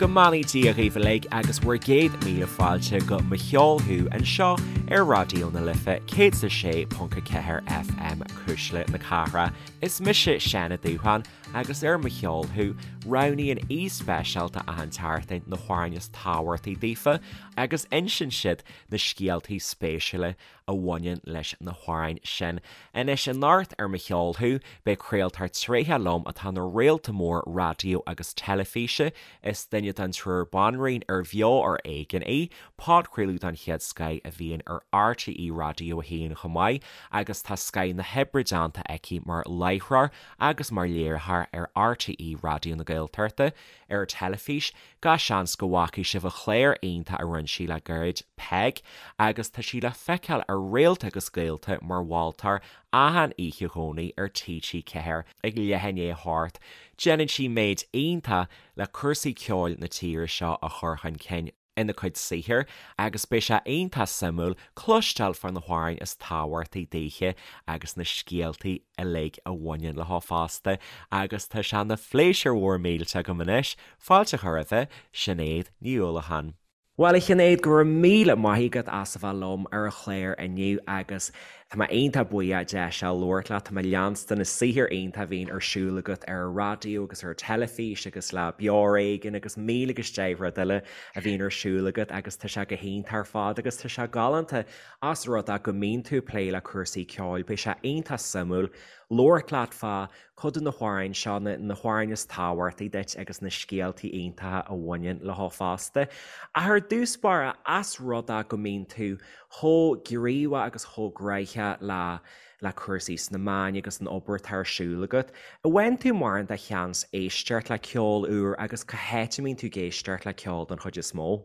go mbeannaí Dia dhaoibh uilig agus bhur gcéad míle fáilte go Mo Cheol Thú anseo ar Raidió na Life 106.4 FM Cuisle na Cathrach. Is mise Seán Ó Dúsháin agus ar Mo Cheol Thú, roghnaíonn aoi speisialta achan tseachtain na hamhráin is tábhachtaí daofa agus insíonn siad na scéaltaí spéisiúla a bhaineann leis na hamhráin sin. Anois, anocht ar Mo Cheol Thú, beidh craoltóir tréitheach liom atá ina réalta mór raidió agus teilifíse. Is duine den triúr banríon ar Bheo ar Éigean í, podchraoladh den chéad scoith a bhíonn ar RTÉ Raidió 1 chomh maith, agus tá scoith na hoibre déanta aici mar láithreoir agus mar léiritheoir ar RTÉ Raidió na Gaeltachta ar teilifís. Gach seans go bhfacaidh sibh a clár iontach a rinne sí le gairid, Peig, agus tá sí le feiceáil ar Réalta agus Gaolta mar mholtóir achan oíche Dhomhnaigh ar TG4 ag leath i ndiaidh a hocht. Déanann sí méid iontach le cúrsaí ceoil na tíre seo a chur chun cinn ina cuid saothair agus beidh sé iontach suimiúil cloisteáil fá na hamhráin is tábhachtaí daoithe agus na scéaltaí uilig a bhaineann leo fosta agus tá sé ina phléisiúr mhór millteach agam anois fáilte a chur roimhe, Sinéad Ní Uallacháin. Bhuel a Shinéad, go raibh míle maith agat as a bheith liom ar an chlár inniu agus tá mé iontach buíoch deis a labhairt leat. Tá mé ag leanstan na saothair iontach a bhíonn ar siúl agat ar an raidió agus ar an teilifís agus le Beo Ar Éigean agus míle agus deich rud eile a bhíonn ar siúl agat agus tá sé go hiontach ar fad agus tá sé galánta as rud é go mbíonn tú ag plé le cúrsaí ceoil. Beidh sé iontach suimiúil labhairt leat fá cuid de na hamhráin seo, na hamhráin is tábhachtaí duit agus na scéaltaí iontacha a bhaineann leo fosta. Ach ar dtús báire, as rud é go mbíonn tú chomh gníomhach agus chomh gnaitheach le le cúrsaí sna meáin agus an obair atá ar siúl agat, an bhfaigheann tú mórán de sheans éisteacht le ceol úr agus cá háit a mbíonn tú ag éisteacht le ceol den chuid is mó?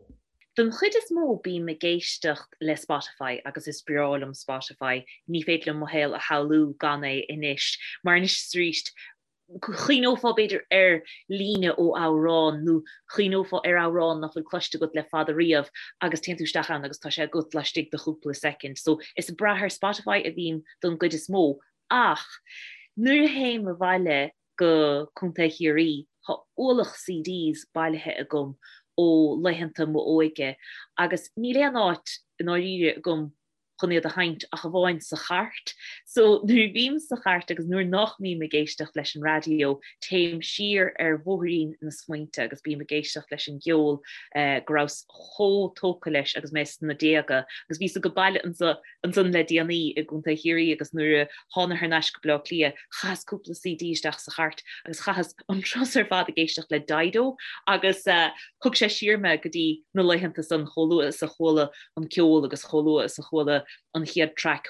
Don chuid is mó bím ag éisteacht le Spotify agus is breá liom Spotify, ní féidir liom mo shaol a shamhlú gan é anois, mar anois is arís chuimhneofá b'fhéidir ar líne ó amhrán nó chuimhneofá ar amhrán nach bhfuil cloiste agat le fada riamh agus téann tú isteach ann agus tá sé agat laistigh de chúpla soicind. So is ag brath ar Spotify a bhím don gcuid is mó ach nuair a théim abhaile go Contae Chiarraí. Tá ualach CDs bailithe agam ó laethanta m'óige agus níl aon áit i ndáiríre agam chun iad a sheinnt ach amháin sa chairt. So nuair a bhím sa chairt agus nuair nach mbím ag éisteacht leis an raidió, téim siar ar bhóithrín na smaointe agus bím ag éisteacht leis an gceol go rabhas chomh tógtha leis agus mé sna déaga agus bhíos ag baile anso ansan le déanaí i gContae Chiarraí agus nuair a thána thar n-ais go Baile Átha Cliath chaitheas cúpla CD isteach sa chairt agus chaitheas an turas ar fad ag éisteacht le Dido agus thug sé siar mé go dtí na laethanta san chomh luath is a chuala an ceol agus chomh luath is a chuala an chéad traic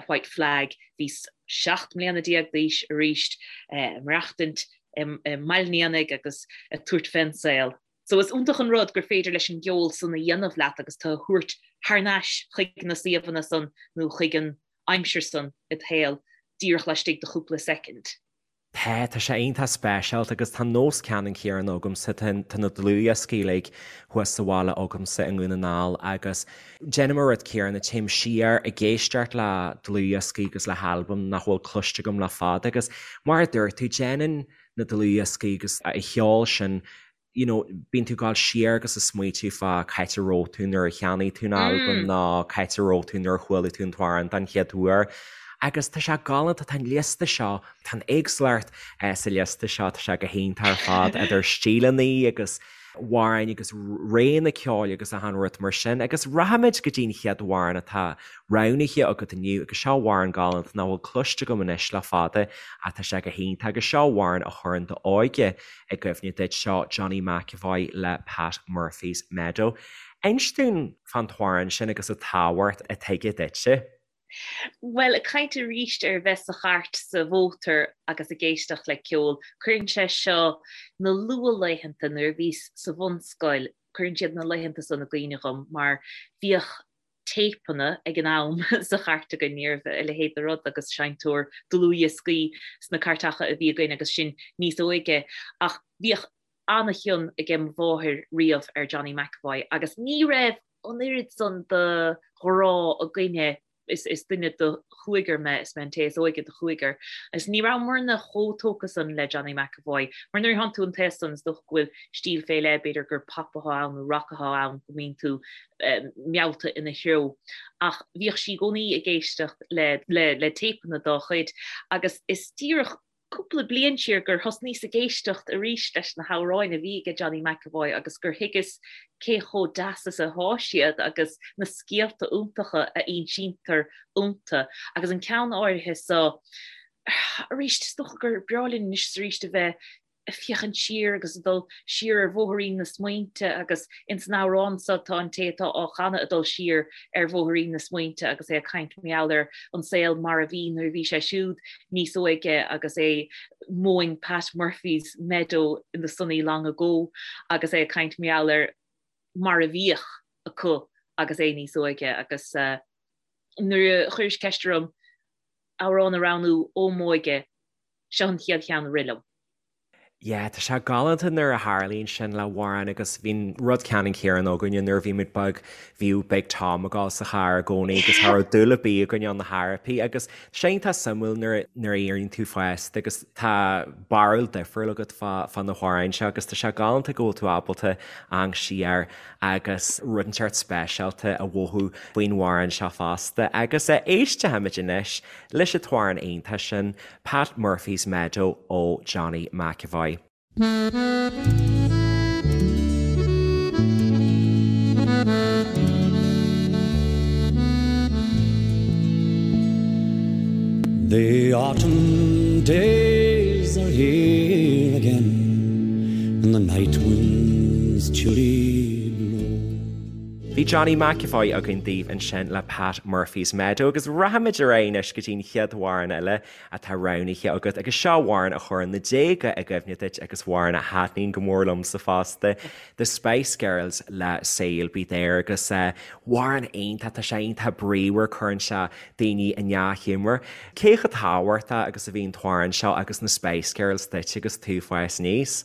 White Flag bhíos 17 mbliana d'aois arís ag maireachtaint i mBaile an Éanaigh agus ag tabhairt fén saol. So is iontach an rud gur féidir leis an gceol san a dhéanamh leat agus tú a thabhairt thar n-ais chuig na suíomhanna san nó chuig an aimsir san id shaol díreach laistigh de chúpla soicind. Tá, tá sé iontach speisialta agus tá nós ceannann céanna agamsa, tá na dlúthdhioscaí uilig thuas sa bhaile agamsa i nDún na nGall agus déanaim an rud céanna, téim siar ag éisteacht le dlúthdhioscaí agus le halbaim nach bhfuil cloiste agam le fada agus mar a dúirt tú, déanann na dlúthdhioscaí agus an cheol sin you know, bíonn tú ag gabháil siar agus ag smaoitiú fá cá háit a raibh tú nuair a cheannaigh tú an albam nó cá háit a raibh tú nuair a chuala tú an t-amhrán den chéad uair. Agus tá sé galánta, tá an liosta seo, tá an éagsúlacht sa liosta seo, tá sé go hiontach ar fad idir stíleanna agus amhráin agus réanna ceoil agus achan rud mar sin. Agus rachaimid go dtí an chéad amhrán atá roghnaithe agat inniu agus seo amhrán galánta nach bhfuil cloiste agam anois le fada ach tá sé go hiontach agus seo amhrán a chuireann d'óige i gcuimhne duit, seo Johnny McEvoy le Pat Murphy's Meadow. Inis dúinn fán t-amhrán sin agus an tábhacht atá aige duitse. Bhuel, ag caint arís ar bheith sa chairt sa mhótar agus ag éisteacht le ceol, cuireann sé seo na luathlaethanta nuair a bhíos sa bhunscoil, cuireann siad na laethanta san i gcuimhne dhom mar bhíodh téipeanna ag an am sa chairt againn, ní raibh a leithéid de rud agus seinnteoir dlúthdhioscaí sna cairteacha a bhí againn agus sinn níos óige ach bhíodh an-chion aige mo mháthair riamh ar Johnny McEvoy agus ní raibh an oiread san de ghrá againne. Is duine de chúigear mé, is mé an té is óige de chúigear, agus ní rabhamarna chomh tógtha san le Johnny McEvoy, mar nuair a thánn tú an t-aos san, is dócha go bhfuil stíl fé leith, b'fhéidir gur pop atá ann nó rac atá ann, go mbíonn tú meallta ina threo. Ach bhíodh sí i gcónaí ag éisteacht le le téipeanna dá chuid, agus is díreach cúpla bliain siar gur thosnaíos ag éisteacht arís leis na hamhráin a bhí aige Johnny McEvoy agus gur thuigeas cé chomh deas is atá siad agus na scéalta iontacha a insíntear iontu. Agus an ceann áirithe so, arís, is dócha gur breá linn anois is arís a bheith ag féachaint siar agus ag dul siar ar bhóithrín na smaointe agus ins an amhrán so tá an té atá á chanadh ag dul siar ar bhóithrín na smaointe agus é ag caint mar gheall ar an saol mar a bhí nuair a bhí sé siúd níos óige agus é mowing Pat Murphy's meadow in the sunny long ago agus é ag caint mar gheall ar mar a bhíodh acu agus é níos óige agus nuair a chuiris ceist orm amhrán a roghnú ó m'óige, seo an chéad cheann a rith liom. Yeah, tá sé galánta nuair a tharlaíonn sin le hamhrán agus bhí an rud ceannann céanna againne nuair a bhí muid beag, bhíodh Big Tom ag gabháil sa charr i gcónaí agus cha raibh dúil ar bith againne ann ar chor ar bith agus tá sé iontach suimiúil nuair nuair a éiríonn tú fásta agus tá barúil difriúil agat fá fá na hamhráin seo agus tá sé galánta go bhfuil tú ábalta amharc siar agus rud inteacht speisialta a mhothú faoin amhrán seo fosta agus éistfimid anois leis an t-amhrán iontach sin Pat Murphy's Meadow ó Johnny McEvoy. The autumn days are here again And the night winds chilly blow. Bhí Johnny McEvoy againn daoibh ansin le Pat Murphy's Meadow agus rachaimid ar aghaidh anois go dtí an chéad amhrán eile atá roghnaithe agat agus seo amhrán a chuireann na déaga i gcuimhne duit agus amhrán a thaitníonn go mór liomsa fosta, The Spice Girls le Say You'll Be There agus amhrán iontach, tá sé iontach bríomhar, cuireann sé daoine i ndea-ghiúmar. Cé chomh tábhachtach agus a bhí an t-amhrán seo agus na Spice Girls duit agus tú ag fás aníos?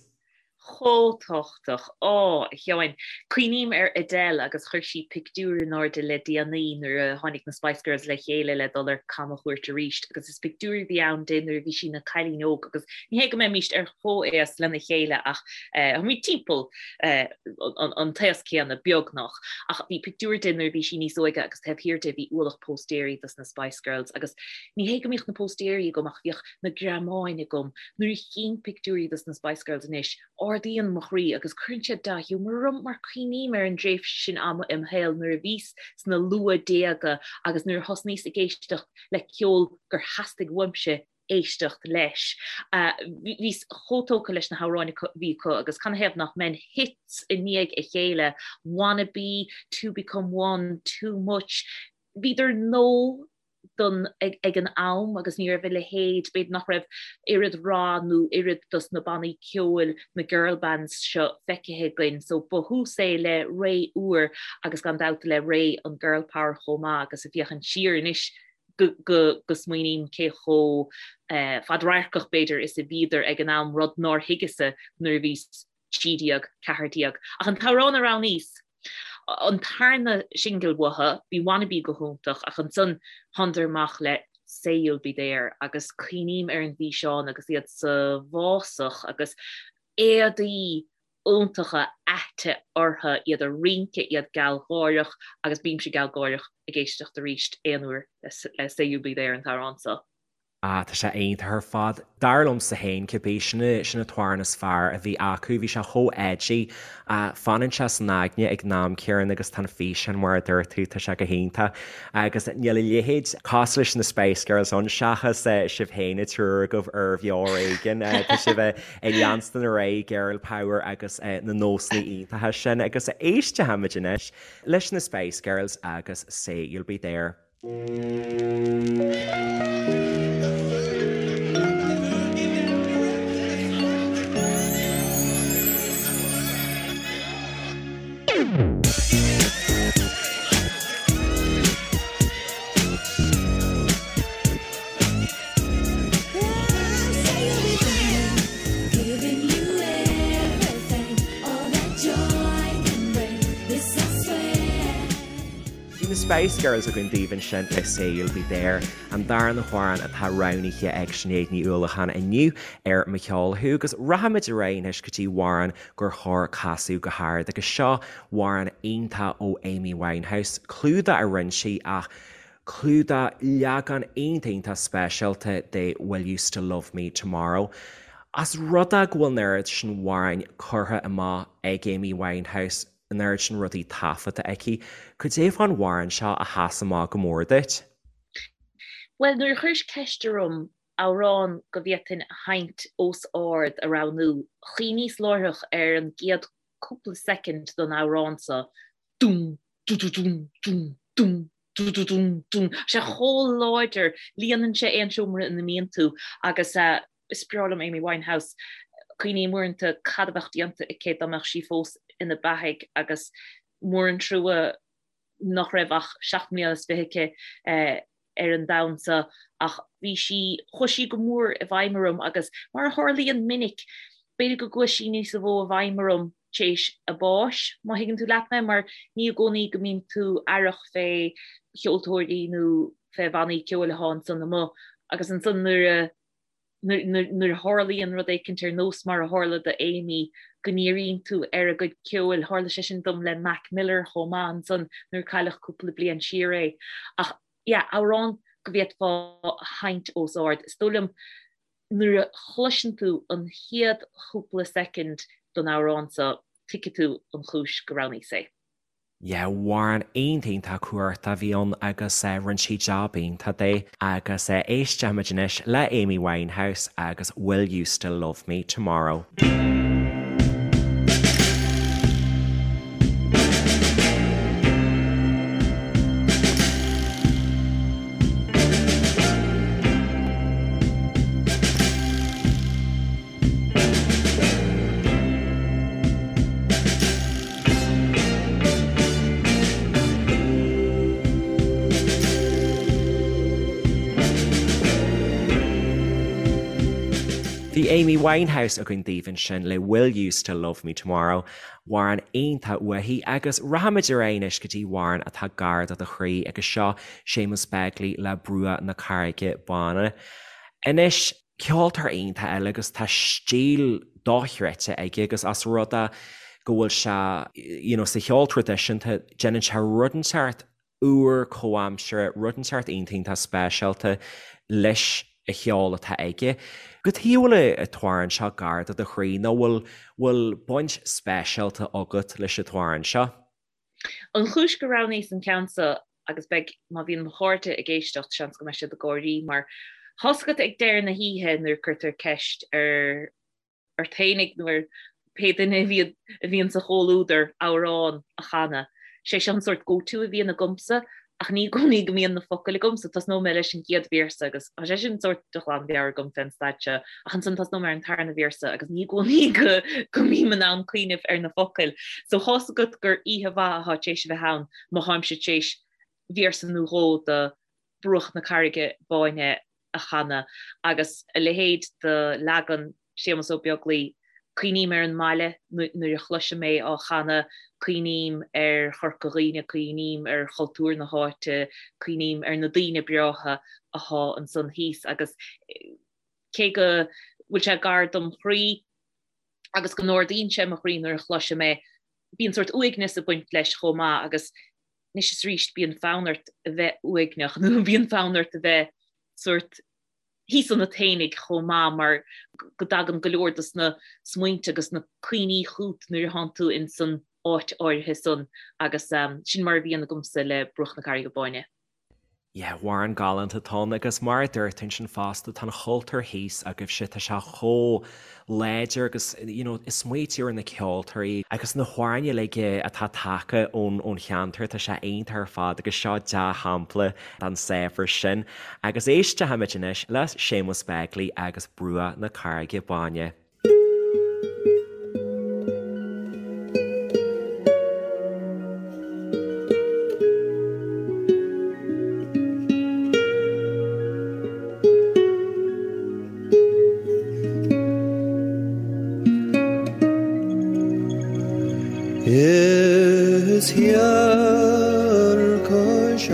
Chomh tábhachtach. Á, a Sheáin. Cuimhním ar Adele agus chuir sí pictiúr in airde le déanaí nuair a tháinig na Spice Girls le chéile le dul ar camchuairt arís agus is pictiúr a bhí ann di nuair a bhí sí ina cailín óg agus ní hé go mbeimíst ar chomhaos lena chéile ach táimid timpeall an t-aos céanna, beagnach. Ach bhí pictiúr di nuair a bhí sí níos óige agus taobh thiar di bhí ualach póstaeirí dos na Spice Girls agus ní hé go mbíodh na póstaeirí agam ach bhíodh na greamáin agam. Nuair a chím pictiúirí dos na Spice Girls anois, ardaíonn mo chroí agus cuireann siad dea-ghiúmar orm mar cuimhním ar an dtréimhse sin ama im shaol nuair a bhíos sna luath-déaga agus nuair a thosnaíos ag éisteacht le ceol gur theastaigh uaimse éisteacht leis. Bhíos chomh tógtha leis na hamhráin a bhí acu agus canathaobh nach mbeinn hits i ndiaidh a chéile, Wannabe, Two Become One, Too Much, bhíodar nua don ag an am agus ní raibh a leithéid, b'fhéidir nach raibh oiread rath nó oiread dos na bannaí ceoil, na girl bands seo feicthe againn so ba thús é le ré úr agus gan dabht le ré an girl power chomh maith agus ag féachaint siar anois go go go smaoiním cé chomh fadradharcach b'fhéidir is a bhíodar ag an am, rud nár thuigeas-sa nuair a bhíos 13, 14. Ach an t-amhrán a roghnaíos, an tarna singil uathu, bhí Wannabe go hiontach ach ansan thánadar amach le Say You'll Be There agus cuimhním ar an bhfíseán agus iad sa bhfásach agus éadaí iontacha aite orthu, iad ag rince, iad gealgháireach agus bímse gealgháireach ag éisteacht arís aon uair le Say You'll Be There an t-amhrán seo. Ah, tá sé iontach ar fad. Dar liomsa féin, cibé, sin sin an t-amhrán is fearr a bhí acu. Bhí sé chomh edgy. Fanann sé san aigne ag an am céanna agus tá an físeán mar a dúirt tú, tá sé go hiontach. Agus níl a leithéid cosúil leis na Spice Girls ann seachas sibh féin an triúr agaibh ar Bheo Ar Éigean. Tá sibh ag leanstan ar aghaidh Girl Power agus na nósanna iontacha sin. Agus éistfimid anois leis na Spice Girls agus Say You'll Be There. Bhí na Spice Girls againn daoibh ansin le Say You'll Be There, an darna hamhrán atá roghnaithe ag Sinéad Ní Uallacháin inniu ar Mo Cheol Thú agus rachaimid ar aghaidh anois go dtí amhrán gur chóir casadh go hard agus seo amhrán iontach ó Amy Winehouse, clúdach a rinne sí ach clúdach leagan iontach iontach speisialta de Will You Still Love Me Tomorrow. As rud é go bhfuil an oiread sin amhráin curtha amach ag Amy Winehouse, an oiread sin rudaí taifeadta aici, cad é fán amhrán seo a sheas amach go mór duit? Bhuel, nuair a chuiris ceist orm amhrán go bhféadfainn a sheinnt os ard a roghnú, chuimhníos láithreach ar an gcéad cúpla soicind den amhrán seo, dún, dú-dú-dún, dún, dún, dú-dú-dún, dún. Tá sé chomh láidir, líonann sé aon seomra ina mbíonn tú agus is breá liom Amy Winehouse. Cuimhním uaireanta cad a bheadh déanta aici dá mbeadh sí fós ina beathaidh agus mór an trua nach raibh ach 27 mbliana aici ar an domhan seo ach bhí sí, chuaigh sí go mór i bhfeidhm orm agus mar a tharlaíonn minic, b'fhéidir go gcuaigh sí níos mó i bhfeidhm orm t'éis a báis, má thuigeann tú leat mé, mar ní i gcónaí go mbíonn tú aireach fé cheoltóirí nó fé bhannaí ceoil atá ansan amuigh agus ansan nuair a nuair a tharlaíonn rud éicint ar nós mar a tharla do Amy, go ndíríonn tú ar a gcuid ceoil. Tharla sé sin dom le Mac Miller chomh maith ansan nuair a cailleadh cúpla bliain siar é. Ach yeah, amhrán go bhféadfá a sheinnt os ard. Is dóigh liom nuair a chloiseann tú an chéad chúpla soicind den amhrán seo, tuigfidh tú an chúis go roghnaíos é. Yeah, amhrán iontach iontach cumhachtach a bhí ann agus rinne sí jab iontach de agus éistfimid anois le Amy Winehouse agus Will You Still Love Me Tomorrow. Bhí Amy Winehouse againn daoibh ansin le Will You Still Love Me Tomorrow, amhrán iontach uaithi agus rachaimid ar aghaidh anois go dtí amhrán atá gar do do chroí agus seo Séamus Begley le Bruach na Carraige Báine. Anois, ceoltóir iontach eile agus tá stíl dochreidte aige agus as rud é go bhfuil sé you know sa cheol traidisiúnta déanann sé rud inteacht úr comhaimseartha, rud inteacht iontach iontach speisialta leis an cheol atá aige. Cad chuige a bhfuil an t-amhrán seo gar do do chroí nó bhfuil bhfuil baint speisialta agat leis an t-amhrán seo? An chúis gur roghnaíos an ceann seo, agus beidh, má bhíonn mo chairde ag éisteacht, seans go mbeidh siad ag gáirí, mar tá's agat ag deireadh na hoíche nuair a cuirtear ceist ar ort fhéinig nó ar pé duine a bhíonn a bhíonn sa chomhluadar amhrán a chanadh. Sé seo an sórt go-to a bhíonn agamsa ach ní i gcónaí go mbíonn na focail agamsa. Tosnóidh mé leis an gcéad véarsa agus tá sé sin sórt de ghlanmheabhair agam fén staid seo ach ansan tosnóidh mé ar an tarna véarsa agus ní i gcónaí go go mbím in ann cuimhneamh ar na focail. So thá's agat gur oíche mhaith atá tar éis a bheith ann má tháimse tar éis véarsa nó dhó de Bruach na Carraige Báine a chanadh agus a leithéid de leagan Séamus Ó Beaglaoi, cuimhním ar an mbaile nuair a chloisim é á chanadh, cuimhním ar Chorca Dhuibhne, cuimhním ar chultúr na háite, cuimhním ar na daoine breátha athá ansan thíos agus cé go bhfuil sé gar dom chroí agus go n-ardaíonn sé mo chroí nuair a chloisim é, bíonn sórt uaigneas ag baint leis chomh maith agus anois is arís bíonn fonn ort a bheith uaigneach nó bíonn fonn ort a bheith sórt thíos ionat fhéinig chomh maith mar go dtagann go leor dos na smaointe agus na cuimhní chút nuair a thánn tú ins an áit áirithe san agus sin mar a bhíonn agamsa le Bruach na Carraige Báine. Yeah, amhrán galánta atá ann agus mar a dúirt tú ansin fosta, tá an chultúr thíos agaibhse, tá sé chomh láidir agus you know is smaoitiú ar na ceoltóirí agus na hamhráin uilig atá tagtha ón ón cheantar, tá sé iontach ar fad agus seo dea-shampla den saibhreas sin. Agus éistfimid anois le Séamus Begley agus Bruach na Carraige Báine. Is thiar cois.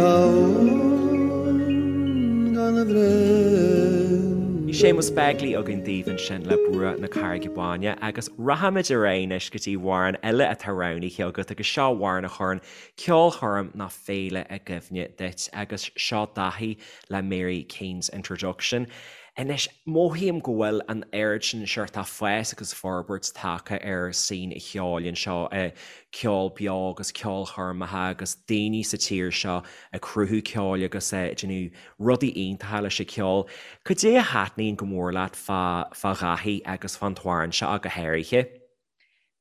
Séamus Begley againn daoibh ansin le Bruach na Carraige Báine agus rachaimid ar aghaidh anois go dtí amhrán eile atá roghnaithe agat agus seo amhrán a chuireann ceolchoirm nó féile i gcuimhne duit agus seo Daithí le Mary Keane's Introduction. Anois, mothaím go bhfuil an oiread sin seort fás agus forbairt tagtha ar scene an cheoil anseo, ceol beo agus ceolchoirmeacha agus daoine sa tír seo ag cruthú ceoil agus ag déanamh rudaí iontacha leis an cheol. Cad é a thaitníonn go mór leat fá fá Dhaithí agus fán t-amhrán seo ach go háirithe?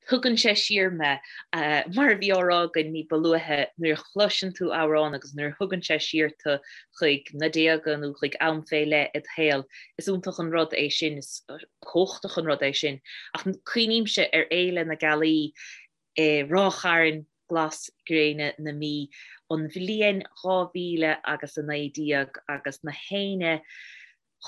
Tugann sé siar mé. Mar a bhí á rá againn ní ba luaithe, nuair a chloiseann tú amhrán agus nuair a thugann sé siar tú chuig na déaga nó chuig am fé leith id shaol, is iontach an rud é sin, is cumhachtach an rud é sin. Ach cuimhnímse ar Fhéile na Gealaí i Ráth Chairn, glas gréine na Mí, an bhliain 2000 agus 19 agus na héinne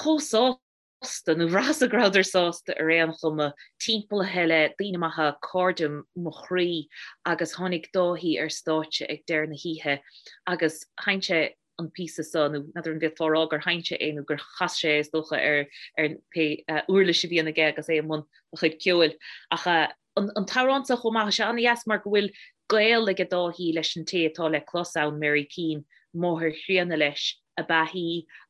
chomh sásta, nó bhraitheas go rabhadar sásta ar aon chuma, timpeallaithe le daoine maithe, cairde mo chroí, agus tháinig Dáithí ar stáitse ag deireadh na hoíche agus sheinn sé an píosa seo, nó n'fheadar an bhféadfá a rá gur sheinn sé é nó gur chas sé é is dócha ar ar pé uirlis a bhíonn aige agus é i mbun a chuid ceoil. Ach an t-amhrán seo chomh maith, tá sé an-dheas mar go bhfuil gaol ag Dáithí leis an té atá le clos ann, Mary Keane, máthair chríonna leis ab ea í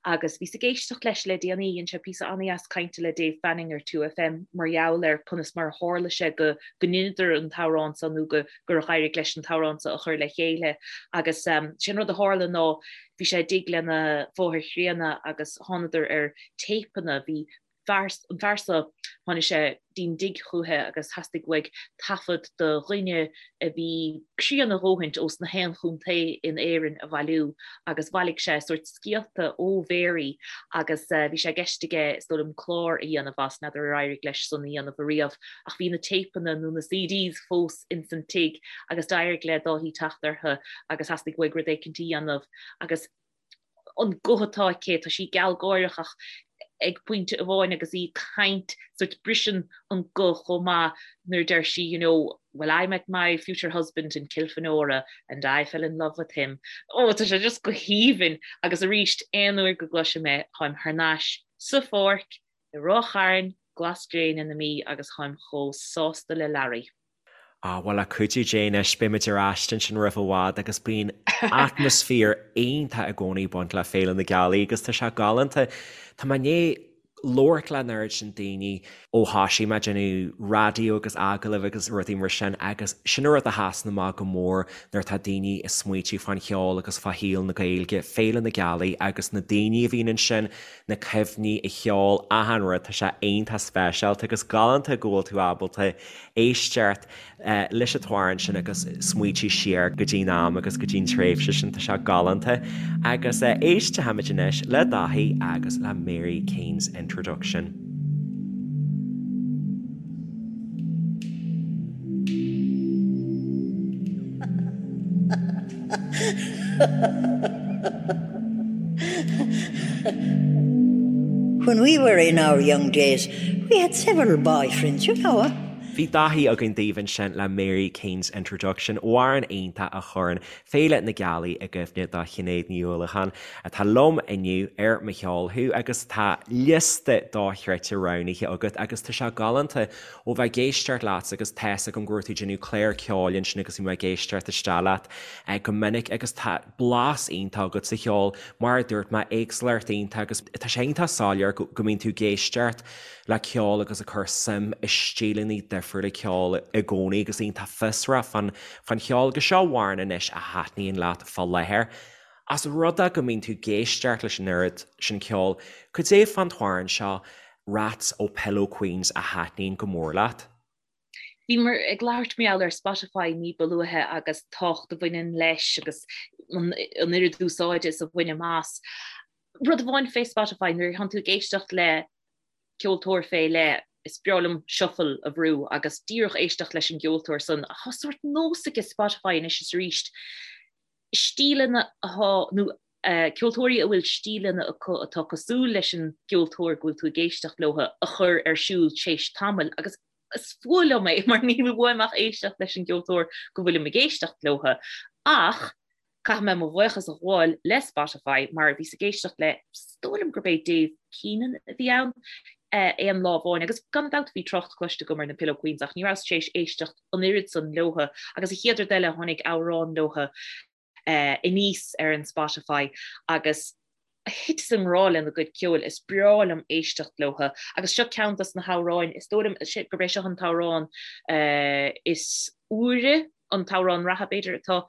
agus bhíos ag éisteacht leis le déanaí, dhein sé píosa an-dheas cainte le Dave Fanning ar 2FM mar gheall ar conas mar a tharla sé go go ndeineadar an t-amhrán seo nó go gur éirigh leis an t-amhrán seo a chur le chéile agus sé an rud a tharla ná bhí sé i dtigh lena mháthair chríonna agus thánadar ar téipeanna, bhí fear, an fear seo, tháinig sé dtí'n dtigh chúiche agus theastaigh uaidh taifead de dhuine a bhí críonna a dhóthaint ós na haon chontae in Éirinn a bhailiú agus bhailigh sé sórt scéalta ó Mhary agus bhí sé i gceist aige is dóigh liom clár a dhéanamh as, n'fheadar ar éirigh leis san a dhéanamh ariamh ach bhí na téipeanna nó na CDs fós ins an tigh agus d'éirigh le Dáithí teacht orthu agus theastaigh uaidh rud éicint a dhéanamh agus an guth atá aici, tá sí gealgháireach ach ag pointe amháin agus í ag caint, sórt briseann an guth chomh maith nuair a deir sí you know, well I met my future husband in Kilfenora and I fell in love with him. Oh, tá sé just go haoibhinn agus arís aon uair go gcloisim é, táim thar n-ais sa pháirc i Ráth Chairn, glas gréine na Mí agus táim chomh sásta le Larry. Ah, bhuel, le cuidiú Dé anois, beimid ar ais ansin roimh i bhfad agus bíonn atmaisféar iontach i gcónaí ag baint le Féile na Gealaí agus tá sé galánta. Tá mé i ndiaidh labhairt le an oiread sin daoine ó thoisigh mé ag déanamh raidió agus agallaimh agus rudaí mar sin agus sin an rud a sheasann amach go mór nuair atá daoine ag smaoitiú fán cheol agus fá shaol na Gaeilge, Féile na Gealaí agus na daoine a bhíonn ansin, na cuimhní, an ceol, achan rud, tá sé iontach speisialta agus galánta go bhfuil tú ábalta éisteacht leis an t-amhrán sin agus smaoitiú siar go dtí'n am agus go dtí'n tréimhse sin, tá sé galánta. Agus éistfimid anois le Dáithí agus le Mary Keane's Introduction. When we were in our young days, we had several boyfriends, you know. Bhí Dáithí againn daoibh ansin le Mary Keane's Introduction, amhrán iontach a chuireann Féile na Gealaí i gcuimhne do Shinéad Ní Uallacháin, atá liom inniu ar Mo Cheol Thú agus tá liosta dochreidte roghnaithe agat agus tá sé galánta ó bheith ag éisteacht leat agus tá's agam go raibh tú ag déanamh clár ceoil ansin agus bhí mé ag éisteacht isteach leat go minic agus tá blas iontach agat sa cheol, mar a dúirt mé, éagsúlacht iontach agus tá sé iontach soiléir go mbíonn tú ag éisteacht le ceol agus ag cur suim i stíleanna difriúla ceoil i gcónaí agus iontach fiosrach fán fán cheol agus seo amhrán anois a thaitníonn leat fá láthair. Ós rud é go mbíonn tú ag éisteacht leis an oiread sin ceoil, cad é fán t-amhrán seo Rats ó Pillow Queens a thaitníonn go mór leat? Bhíomar ag labhairt mar gheall ar Spotify ní ba luaithe agus tábhacht a bhaineann leis agus an oiread úsáide is a bhainim as. Rud amháin fé Spotify, nuair a thánn tú ag éisteacht le ceoltóir fé leith, is breá liom shuffle a bhrú agus díreach éisteacht leis an gceoltóir san. Ach tá sórt nós aige Spotify anois is arís stíleanna atá, nó ceoltóirí a bhfuil stíleanna acu atá cosúil leis an gceoltóir go bhfuil tú ag éisteacht leo a chur ar siúl tar éis tamaill agus is fuath liom é mar níl uaim ach éisteacht leis an gceoltóir go bhfuilim ag éisteacht leo. Ach. Caithfidh mé mo bhuíochas a ghabháil le Spotify mar bhíos ag éisteacht le, is dóigh liom gurb é Dave Keenan a bhí ann, aon lá amháin agus gan dabht bhí trácht cloiste agam ar na Pillow Queens ach ní rabhas tar éis éisteacht an oiread san leotha agus an chéad rud eile tháinig amhrán leotha aníos ar an Spotify agus thiteas i ngrá lena gcuid ceoil, is breá liom éisteacht leotha agus seo ceann dos na hamhráin, is dóigh liom gurb é seo an t-amhrán is úire, an t-amhrán reatha b'fhéidir atá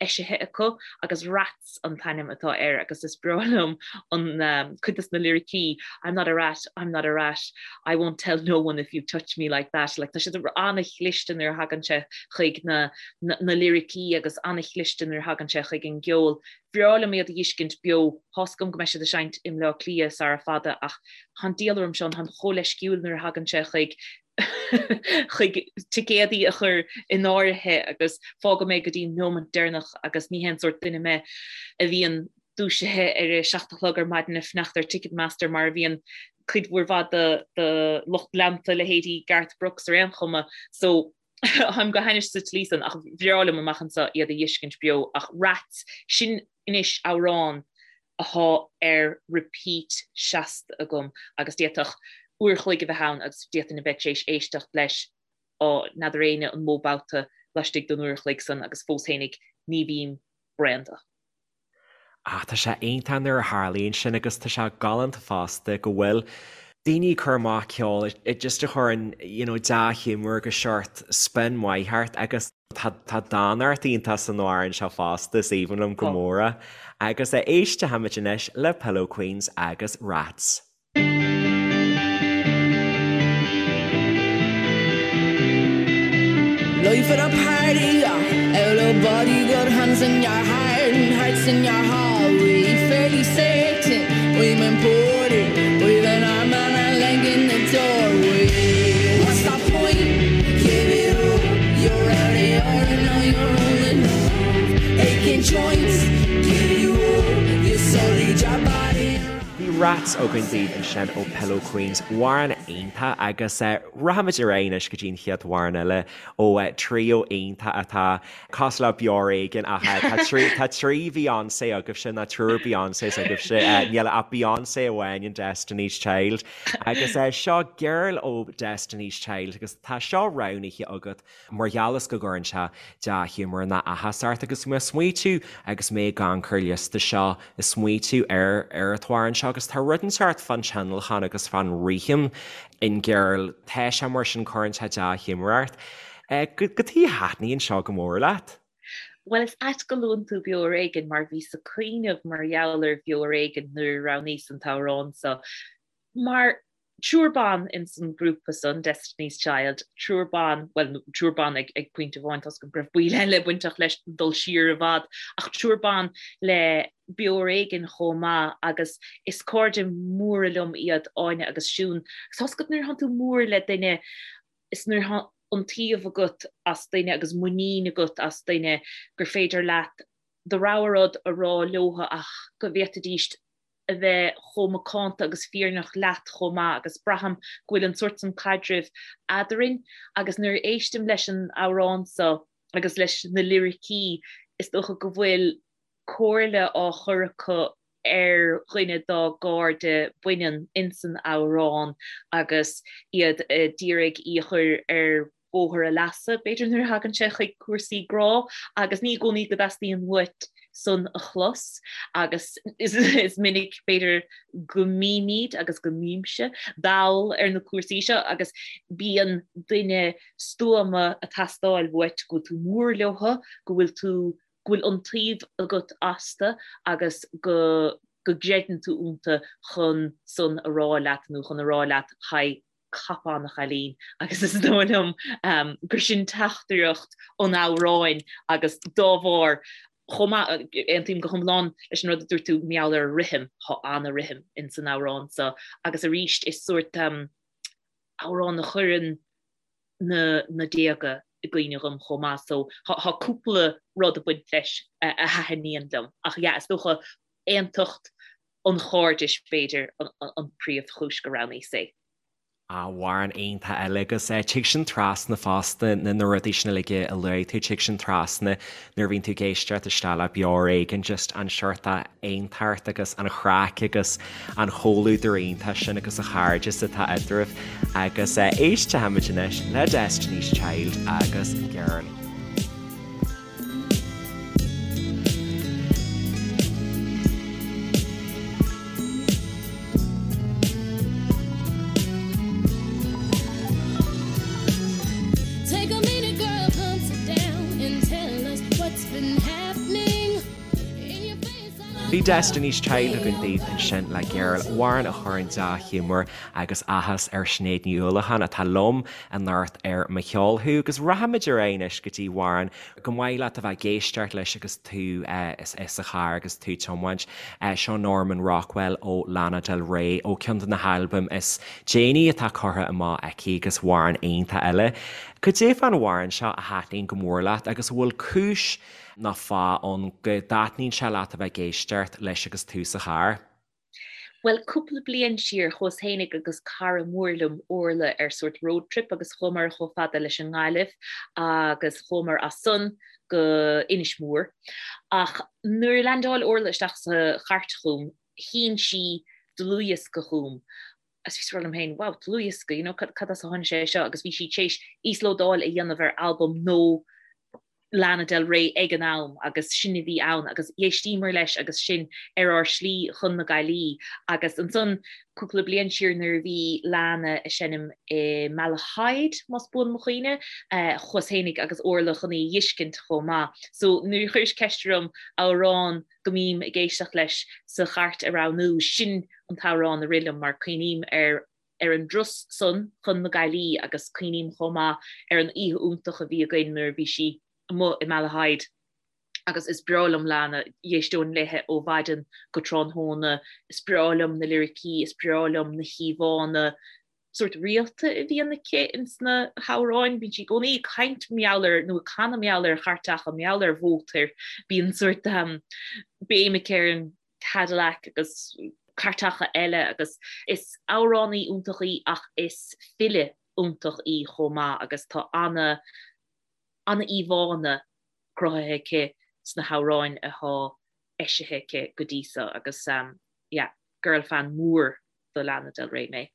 eisithe acu agus Rats an t-ainm atá air agus is breá liom an cuid dos na liricí, I'm not a rat, I'm not a rat, I won't tell no one if you touch me like that. Like, tá siad an-chliste nuair a thagann sé chuig na na liricí agus an-chliste nuair a thagann sé chuig an gceol. Bhreá liom iad a dh'fheiscint beo. Tá's agam go mbeidh siad ag seinnt i mBleá Cliath sara fada ach tá an diabhal orm Seán, táim chomh leisciúil nuair a thagann sé chuig chuig ticéadaí a chur in áirithe agus fágfaidh mé go dtí an nóimeant deireanach agus ní hé an sórt duine mé a bhíonn dúisithe ar a 7 a chlog ar maidin ag fanacht ar Ticketmaster mar a bhíonn cuid mhór mhaith de de lucht leanta leithéidí Garth Brooks ar aon chuma. So Táim go hainnis sa tslí san ach bhreá liom amach anso iad a dh'fheiscint beo ach Rats, sin anois amhrán athá ar repeat seasta agam agus d'fhéadfadh uair a chloig a bheith ann agus d'fhéadfainn a bheith tar éis éisteacht leis á n'fheadar éinne an mó babhta laistigh den uair a chloig san agus fós fhéinig ní bhím bréan de. Ach tá sé iontach nuair a tharlaíonn sin agus tá sé galánta fosta go bhfuil daoine ag cur amach ceol just a chuireann you know dea-ghiúmar agus seort spion maith ort agus tá tá dánacht iontach san amhrán seo fosta, is aoibhinn liom go mór é. Agus éistfimid anois le Pillow Queens agus Rats. Life at a party, out of body, got hands in your heart and hearts in your hallway. Fairly certain we've been poorly with an arm and a leg in the doorway. What's the point? Give it up. You're out of your and now you're rolling up. Aching joints, give you up. You sullied your body. Bhí Rats againn daoibh ansin ó Pillow Queens, amhrán iontach agus rachaimid ar aghaidh anois go dtí an chéad amhrán eile ó trio iontach atá cosúil le Beo Ar Éigean ach tá trí tá trí Beyonce agaibhse nó triúr Beyoncés agaibhse, níl ach Beyonce amháin in Destiny's Child agus seo Girl ó Destiny's Child agus tá seo roghnaithe agat Mar gheall is go gcuireann sé dea-ghiúmar nó áthas ort agus mé ag smaoitiú agus mé ag amharc ar an liosta seo, ag smaoitiú ar ar an t-amhrán seo agus tá rud inteacht fán tionlacan agus fán rithim in Girl, tá sé mar sin, cuireann sé dea-ghiúmar ort. Cad chuige a thaitníonn seo go mór leat? Bhuel, is ait go luann tú Beo Ar Éigean mar bhíos ag cuimhneamh mar gheall ar Bheo Ar Éigean nuair a roghnaíos an t-amhrán seo. Mar triúr ban ins an grúpa san, Destiny's Child, triúr ban, bhuel, triúr ban ag ag pointe amháin, tá's agam go raibh baill eile bainteach leis dul siar i bhfad, ach triúr ban le Beo Ar Éigean chomh maith agus is cairde móra liom iad Áine agus Siún. Agus tá's agat nuair atánn tú mór le duine, is nuair atá iontaoibh agat as duine agus muinín agat as duine gur féidir leat do rogha rud a rá leotha ach go bhféadfaidíst a bheith chomh macánta agus fírinneach leat chomh maith agus braithim go bhfuil an sórt san caidrimh eadrainn agus nuair a éistim leis an amhrán seo agus leis na liricí is dócha go bhfuil comhairle á chur acu ar dhuine dá gcairde baineann insan amhrán agus iad a d'iarraidh í a chur ar bhóthar a leasa, b'fhéidir, nuair a thagann sé chuig cúrsaí grá, agus ní i gcónaí go dteastaíonn uait san a chlos, agus is minic, b'fhéidir, go mbímid, agus go mbímse, dall ar na cúrsaí seo, agus bíonn duine stuama ag teastáil uait, go bhfuil tú mór leotha, go bhfuil tú, go bhfuil iontaoibh agat astu agus go go gcreideann tú iontu chun san a rá leat nó chun a rá leat, haigh, cop on a chailín agus is dóigh liom gur sin teachtaireacht an amhráin agus dá bharr chomh maith, aontaím go hiomlán leis an rud a dúirt tú mar gheall ar an rithim, tá ana-rithim ins an amhrán seo agus arís is sórt amhrán a chuireann na na déaga i gcuimhne dhom chomh maith so tá cúpla rud ag baint leis a thaitníonn liom ach yeah is dócha aontacht an chairdis b'fhéidir an príomhchúis go roghnaíos é. Amhrán iontach eile agus tig sin trasna fosta na rudaí sin uilig a luaigh tú, tig sin trasna nuair a bhíonn tú ag éisteacht isteach le Beo Ar Éigean just an seort aontacht agus an chraic agus an chomhluadar iontach sin agus an chairdeas atá eadraibh agus éistfimid anois le Destiny's Child agus Girl. Bhí Destiny's Child againn daoibh ansin le Girl, amhrán a chuireann dea-ghiúmar agus áthas ar Sinéad Ní Uallacháin atá liom anocht ar Mo Cheol Thú agus rachaimid ar aghaidh anois go dtí amhrán gur maith leat a bheith ag éisteacht leis agus tú sa charr agus tú ag tiomáint. Seo Norman Rockwell ó Lana Del Rey ó ceann de na halbaim is déanaí atá curtha amach aici agus amhrán iontach eile. Cad é fán amhrán seo a thaitníonn go mór leat agus an bhfuil cúis nó fáth ann go dtaitníonn sé leat a bheith ag éisteacht leis agus tú sa charr? Bhuel, cúpla bliain siar, chuas fhéinig agus cara mór liom, Orla, ar sórt road trip agus chuamar chomh fada leis an nGaillimh agus chuamar as san go Inis Mór. Ach nuair a leaindeáil Orla isteach sa chairt chugam, shín sí dlúthdhiosca chugam agus bhíos ag rá liom féin, wow, dlúthdhiosca, you know, cad as a tháinig sé seo? Agus bhí sí tar éis íoslódáil a dhéanamh ar albam nó Lana Del Rey ag an am agus sin a bhí ann agus d'éistíomar leis agus sinn ar ár slí chun na Gaillimhe agus ansan cúpla bliain siar nuair a bhí Lana ag seinm i Malahide, más buan mo chuimhne, chuas fhéinig agus Orla chun í a dh'fheiscint chomh maith. So nuair a chuiris ceist orm amhrán go mbím ag éisteacht leis sa chairt a roghnú, sin an t-amhrán a rith liom mar cuimhním ar ar an dturas san chun na Gaillimhe agus cuimhním chomh maith ar an oíche iontach a bhí againn nuair a bhí sí amuigh i Malahide agus is breá liom Lana, d'éisteoinn léithe ó mhaidin go tráthnóna, is breá liom na liricí, is breá liom na híomhánna sórt rialta a bhíonn aici ins na hamhráin, bíonn sí i gcónaí ag caint mar gheall ar nó ag canadh mar gheall ar chairteacha, mar gheall ar mhótair, bíonn sórt béim aici ar an Cadillac agus cairteacha eile agus is amhránaí iontach í ach is file iontach í chomh maith agus tá ana ana íomhánna cruthaithe aici sna hamhráin atá eisithe aici go dtí so agus yeah girl fan mór do Lana Del Rey mé.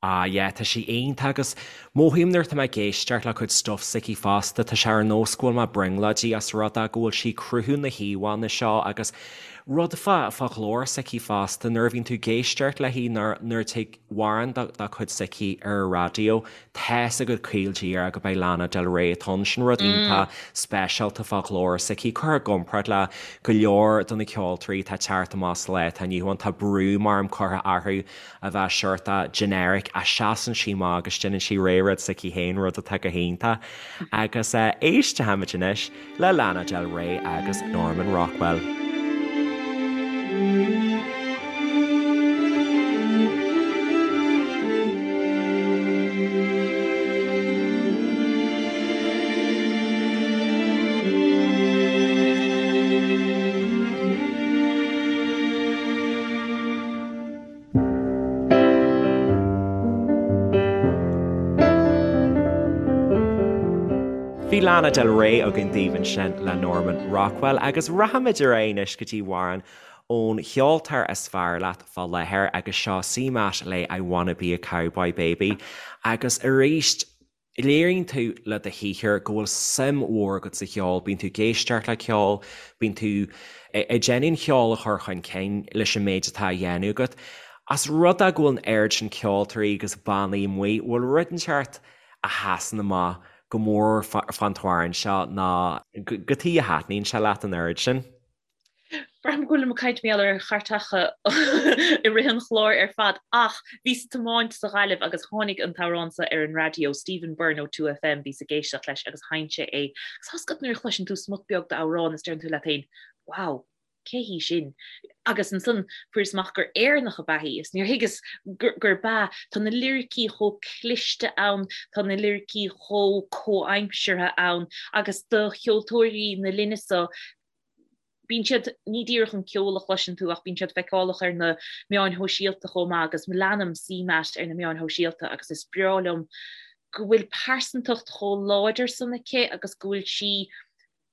Ah yeah, tá sí iontach agus mothaím nuair atá mé ag éisteacht le cuid stuff s'aici fosta, tá sé ar nós go bhfuil mé brionglóidí as rud é go bhfuil sí ag cruthú na híomhánna seo agus rud fá fá ghlór s'aici fosta nuair a bhíonn tú ag éisteacht léi nuair nuair a tig amhrán dá dá cuid s'aici ar an raidió tá's agat caol díreach go beidh Lana Del Rey atá ann, sin rud iontach speisialta fá ghlór s'aici, curtha i gcomparáid le go leor de na ceoltóirí atá ag teacht amach sa lá atá inniu ann, tá brú maram curtha orthu a bheith seort generic ach seasann sí amach agus déanann sí réidh rud s'aici féin, rud atá go hiontach. Agus éistfimid anois le Lana Del Rey agus Norman Rockwell. Bhí Lana Del Rey againn daoibh ansin le Norman Rockwell agus rachaimid ar aghaidh anois go dtí amhrán ón cheoltóir is fearr leat fá láthair agus seo CMAT le I Wanna Be a Cowboy Baby agus arís Léiríonn tú le do shaothar go bhfuil suim mhór agat sa cheol, bíonn tú ag éisteacht le ceol, bíonn tú ag déanamh an cheol a chur chun cinn leis an méid atá á dhéanamh agat. As rud é go bhfuil an oiread sin ceoltóirí agus bannaí amuigh, bhfuil rud inteacht a sheasann amach go mór fán t-amhrán seo nó cad chuige a thaitníonn sé leat an oiread sin? Braithim go bhfuilim ag caint mar gheall ar chairteacha i rith an chláir ar fad ach bhíos ag tiomáint sa Ghaillimh agus tháinig an t-amhrán seo ar an raidió, Stephen Byrne ó 2FM, bhíos ag éisteacht leis agus sheinn sé é. Agus tá's agat nuair a chloiseann tú smut beag d'amhrán is deireann tú leat féin, wow, cé hí sin? Agus ansan fuaireas amach gur Éireannach ab ea í is níor thuigeas gurb ea. Tá na liricí chomh cliste ann, tá na liricí chomh comhaimseartha ann agus do cheoltóirí na linne seo. Bíonn siad, ní díreach an ceol a chloiseann tú ach bíonn siad feiceálach ar na meáin shóisialta chomh maith agus leanaim CMAT ar na meáin shóisialta agus is breá liom go bhfuil pearsantacht chomh láidir san aici agus go bhfuil sí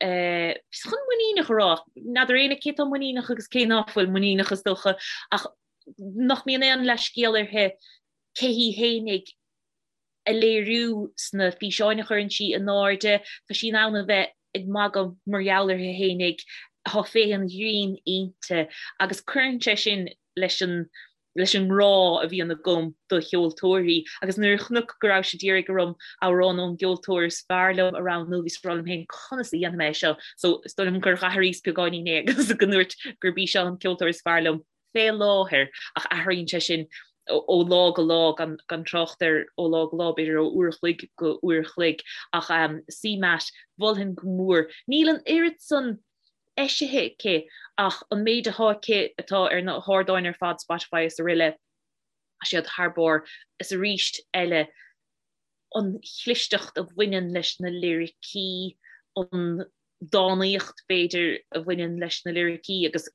eh, chun muiníneach a rá, n'fheadar éinne cé tá muiníneach agus cé ná fuil muiníneach is dócha ach nach mbíonn aon leithscéal uirthi cé hí fhéinig a léiriú sna físeáin a chuireann sí in airde. Tá sí in ann a bheith ag magadh mar gheall uirthi fhéinig, tá féith an ghrinn inti agus cuireann sé sin leis an leis an ngrá a bhíonn agam do cheoltóirí. Agus nuair a chonac go raibh siad d'iarraidh orm amhrán ón gceoltóir is fearr liom a roghnú, bhíos ag rá liom féin conas a dhéanfaidh mé é seo? So is dóigh liom gur dh'athraíos beagáinín é agus go ndúirt gurb í seo an ceoltóir is fearr liom. fé láthair, ach athraíonn sé sin ó lá go lá, gan trácht ar ó lá go lá, b'fhéidir ó uair a chloig go uair a chloig. Ach CMAT, mholfainn go mór. Níl an oiread san eisithe aici ach an méid atá aici atá ar na hardáin ar fad, Spotify is aroile, tá siad thar barr. Is arís eile, an chlisteacht a bhaineann leis na liricí, an dánaíocht, b'fhéidir, a bhaineann leis na liricí agus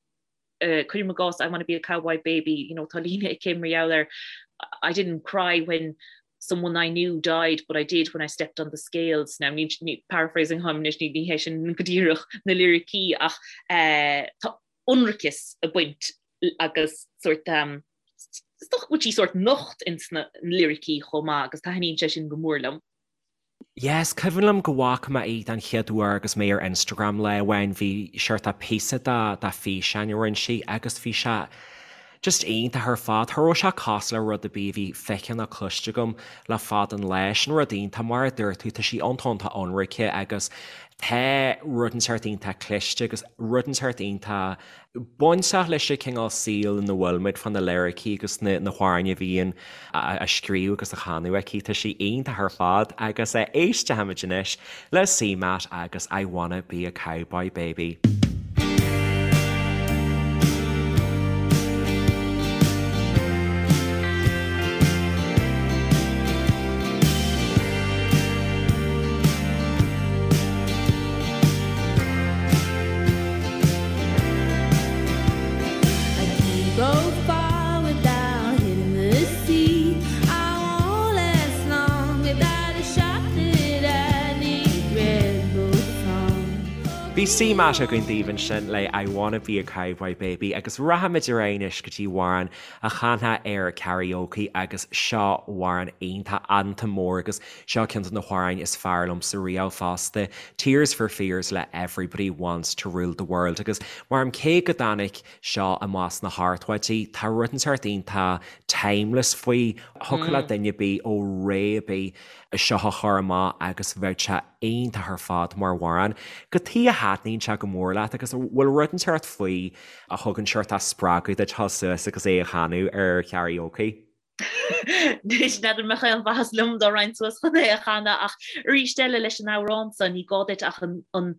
cuirim i gcás I wanna be a cowboy baby, you know, tá líne aici mar gheall ar I didn't cry when someone I knew died but I did when I stepped on the scales. Now, ní, ní, paraphrasing atáim anois, ní, ní hé sin go díreach na liricí ach eh, tá ionraiceas ag baint agus sort um, is dócha go bhfuil sí sort nocht ins na liricí chomh maith agus taitníonn sé sin go mór liom. Yes, cuimhin liom go bhfaca mé í den chéad uair agus mé ar Instagram lá amháin, bhí seort de píosa de de físeán a rinne sí agus bhí sé just iontach ar fad. Cha raibh sé cosúil le rud ar bith a bhí feicthe ná cloiste agam le fada an lá. Sin rud iontach, mar a dúirt tú, tá sí iontach iontach ionraice agus tá rud inteacht iontach cliste agus rud inteacht iontach bainteach leis an cineál saoil ina bhfuil muid fá na liricí agus na hamhráin a bhíonn á scríobh agus á chanadh aici. Tá sí iontach ar fad agus éistfimid anois le CMAT agus I Wanna Be a Cowboy Baby. Bhí CMAT againn daoibh ansin le I Wanna Be a Cowboy Baby agus rachaimid ar aghaidh anois go dtí amhrán a chanfá ar karaoke agus seo amhrán iontach anthem mór agus Seo ceann de na hamhráin is fearr liomsa riamh fosta, Tears for Fears le Everybody Wants to Rule the World agus mar cé go dtáinig seo amach sna hochtóidí, tá rud inteacht iontach timeless faoi, thiocfadh le duine ar bith ó ré ar bith seo a chur amach agus bheadh sé iontach ar fad mar amhrán. Cad chuige a thaitníonn sé go mór leat agus an bhfuil rud inteacht faoi a thugann seort spreagadh duit dul suas agus é a chanadh ar karaoke? Anois, n'fheadar an mbeadh aon mhaitheas liom dá raghainn suas chun é a chanadh ach arís eile leis an amhrán seo ní gá duit ach an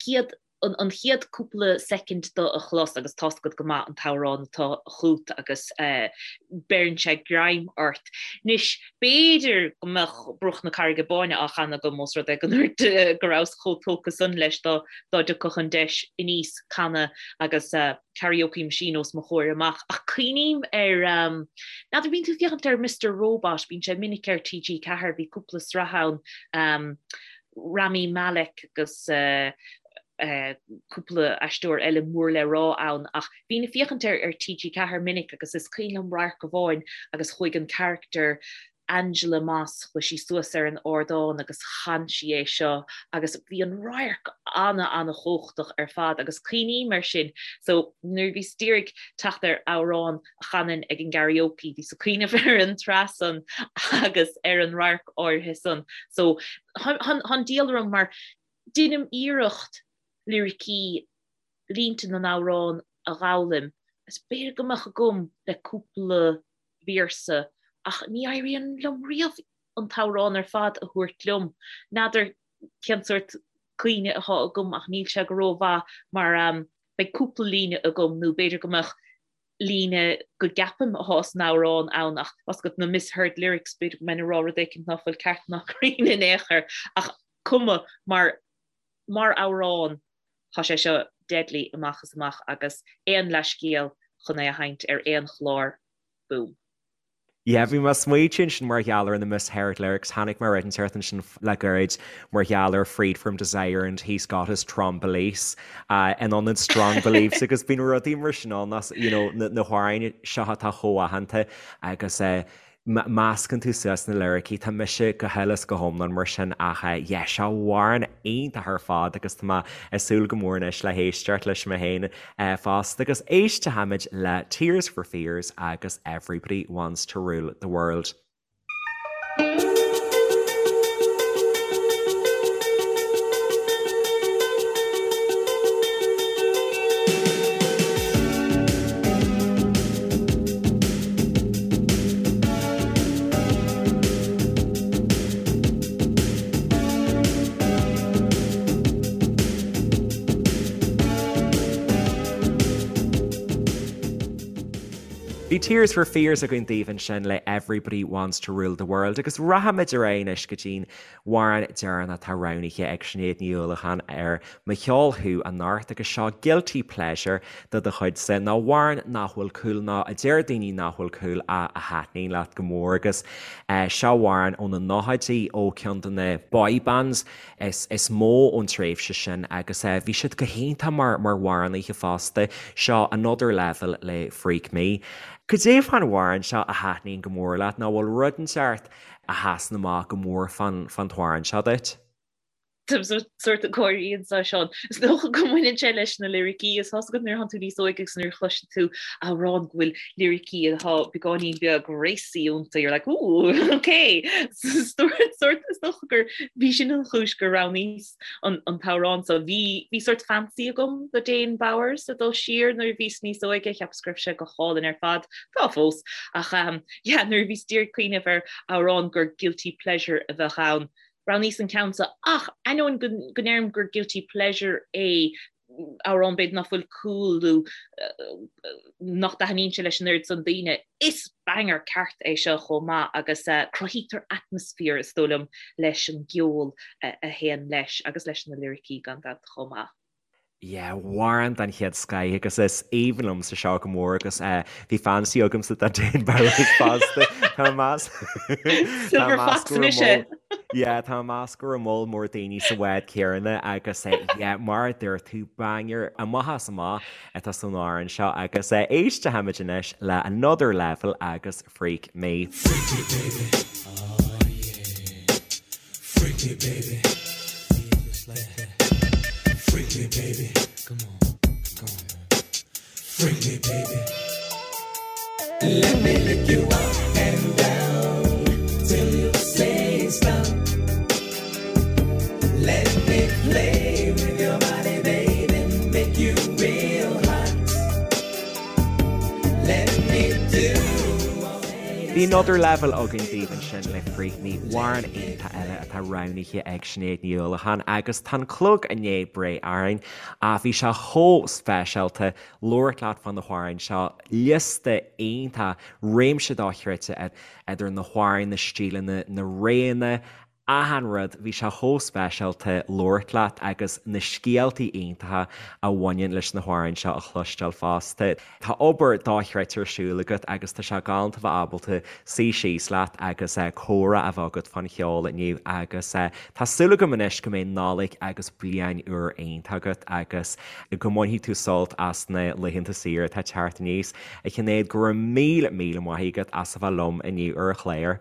chéad an chéad cúpla soicind de a chlos agus tá's agat go maith an t-amhrán atá chugat agus beireann sé greim ort. Anois, b'fhéidir go mbeadh Bruach na Carraige Báine á chanadh agam ós rud é go ndúirt go rabhas chomh tógtha san leis dá dtiocfadh an deis aníos canadh agus karaoke machine os mo chomhair amach. Ach cuimhním ar, n'fheadar, bíonn tú ag féachaint ar Mister Robot, bíonn sé minic ar TG4, bhí cúpla sraith ann, Rami Malek agus cúpla aisteoir eile mór le rá ann ach bhínn ag féachaint air ar TG4 minic agus is cuimhin liom radharc amháin agus chuaigh an character Angela Moss, chuaigh sí suas ar an ardán agus chan sí é seo agus bhí an radharc ana-ana-chumhachtach ar fad agus cuimhním air sin. So nuair a bhíos d'iarraidh teacht ar amhrán a chanfainn ag an gkaraoke, bhíos ag cuimhneamh ar an tsraith san agus ar an radharc áirithe san. So tá an diabhal orm mar deinim iarracht liricí, línte na n-amhrán a dh'fhoghlaim agus b'fhéidir go mbeadh agam le cúpla véarsa ach ní éiríonn liom riamh an t-amhrán ar fad a thabhairt liom. N'fheadar cén sórt cuimhne atá agam ach níl sé go rómhaith mar beidh cúpla líne agam nó b'fhéidir go mbeadh líne go gceapaim atá san amhrán ann ach tá's agat na misheard lyrics b'fhéidir go mbeinn ag rá rud éicint ná fuil ceart ná cruinn in aon chor ach cuma mar mar amhrán tá sé seo. deadly amach is amach agus aon leathscéal chun é a sheinnt ar aon chlár, boom. Yeah, bhí mé ag smaoitiú ansin mar gheall ar na misheard lyrics, tháinig mé ar rud inteacht ansin le gairid mar gheall ar Freed from Desire and He's Got His Trong Beliefs in ionad Strong Beliefs agus bíonn rudaí mar sin ann as, you know, na hamhráin seo atá chomh aitheanta agus meascann tú suas na liricí, tá mise go huile is go hiomlán mar sin ach yeah, seo amhrán iontach ar fad agus tá mé ag súil go mór anois le héisteacht leis mé féin fosta agus éistfimid le Tears for Fears agus Everybody Wants to Rule the World. Bhí Tears for Fears againn daoibh ansin le Everybody Wants to Rule the World agus rachaimid ar aghaidh anois go dtí'n amhrán deireanach atá roghnaithe ag Sinéad Ní Uallacháin ar Mo Cheol Thú anocht agus seo Guilty Pleasure de do chuidse, nó amhrán nach bhfuil cool nó a deir daoine nach bhfuil cool ach a thaitníonn leat go mór agus seo amhrán ó na nóchaidí ó ceann de na boy bands is is mó ón tréimhse sin agus bhí siad go hiontach mar mar amhránaithe fosta. Seo Another Level le Freak Me. Cad é fán amhrán seo a thaitníonn go mór leat nó bhfuil rud inteacht a sheasann amach go mór fán fán t-amhrán seo duit? Táim sórt ag gáirí anseo, Seán. Is dócha go mbaineann sé leis na liricí. Is tá 'fhios agat nuair atánn tú níos óige agus nuair a chloiseann tú amhrán go bhfuil liricí atá beagáinín beag racy iontu, you're like, ooh, okay. Sórt, is dócha gur bhí sin an chúis gur roghnaíos an an t-amhrán so. Bhí bhí sórt fancy agam do Dane Bowers ag dul siar nuair a bhíos níos óige, cheapas go raibh sé go hálainn ar fad. Tá fós. Ach yeah, nuair a bhíos d'iarraidh cuimhneamh ar amhrán gur guilty pleasure a bheadh ann, roghnaíos an ceann seo ach ainneoin go ndeirim gur guilty pleasure é, amhrán b'fhéidir nach bhfuil cool nó nach dtaitníonn sé leis an oiread san daoine, is banger ceart é seo chomh maith agus cruthaítear atmaisféar is dóigh liom leis an gceol a théann leis agus leis na liricí gan dabht chomh maith. Yeah, amhrán den chéad scoith agus is aoibhinn liomsa seo go mór agus bhí fancy agamsa do Dane Bowers fosta. Tá mé ag meas Silver Fox mise! Yeah, tá mé ag meas go raibh moll mór daoine sa bhád céanna agus yeah, mar a dúirt tú, banger amach as amach atá san amhrán seo agus éistfimid anois le Another Level agus Freak Me. Freak me baby, oh yeah. Freak me baby, yeah, just like that. Freak me baby, come on, come on. Freak me baby. Let me lick you up and down till you say stop. Let me play with your body, baby, make you real hot. Let me do Bhí Another Level againn daoibh ansin le Freak Me, amhrán iontach eile atá roghnaithe ag Sinéad Ní Uallacháin agus tá an clog i ndiaidh breith orainn ach bhí sé chomh speisialta labhairt leat fá na hamhráin seo, liosta iontach, réimse dochreidte idir na hamhráin, na stíleanna, na réanna, achan rud, bhí sé chomh speisialta labhairt leat agus na scéaltaí iontacha a bhaineann leis na hamhráin seo a chloisteáil fosta. Tá obair dochreidte ar siúl agat agus tá sé galánta bheith ábalta suí síos leat agus comhrá a bheith agat fán cheol inniu agus tá súil agam anois go mbeidh Nollaig agus Bliain Úr iontach agat agus go mbainfidh tú sult as na laethanta saoire atá ag teacht aníos. A Shinéad, go raibh míle míle maith agat as a bheith liom inniu ar an chlár.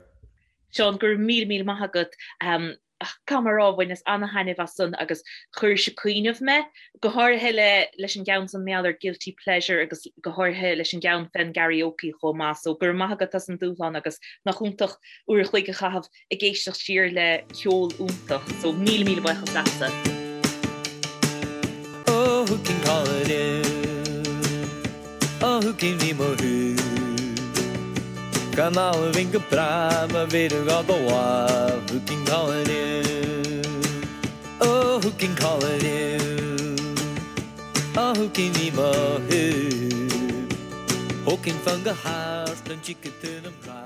Seán, go raibh míle míle maith agat. Caithfidh mé a rá, bhaineas ana-thaitneamh as san agus chuir sé ag cuimhneamh mé, go háirithe le leis an gceann san mar gheall ar guilty pleasure agus go háirithe leis an gceann fén gkaraoke chomh maith. So go raibh maith agat as an dúshlán agus nach iontach uair a chloig a chaitheamh ag éisteacht siar le ceol iontach. So míle míle buíochas leatsa. Oh, who can call it in? Oh, who can ní mo thú? Gan almhain go breá má bhéidir gá do mhaith Who can call it in? Oh, who can call it in? Oh, who can ní mo thú? Who can fan go hard an chicken to na mná?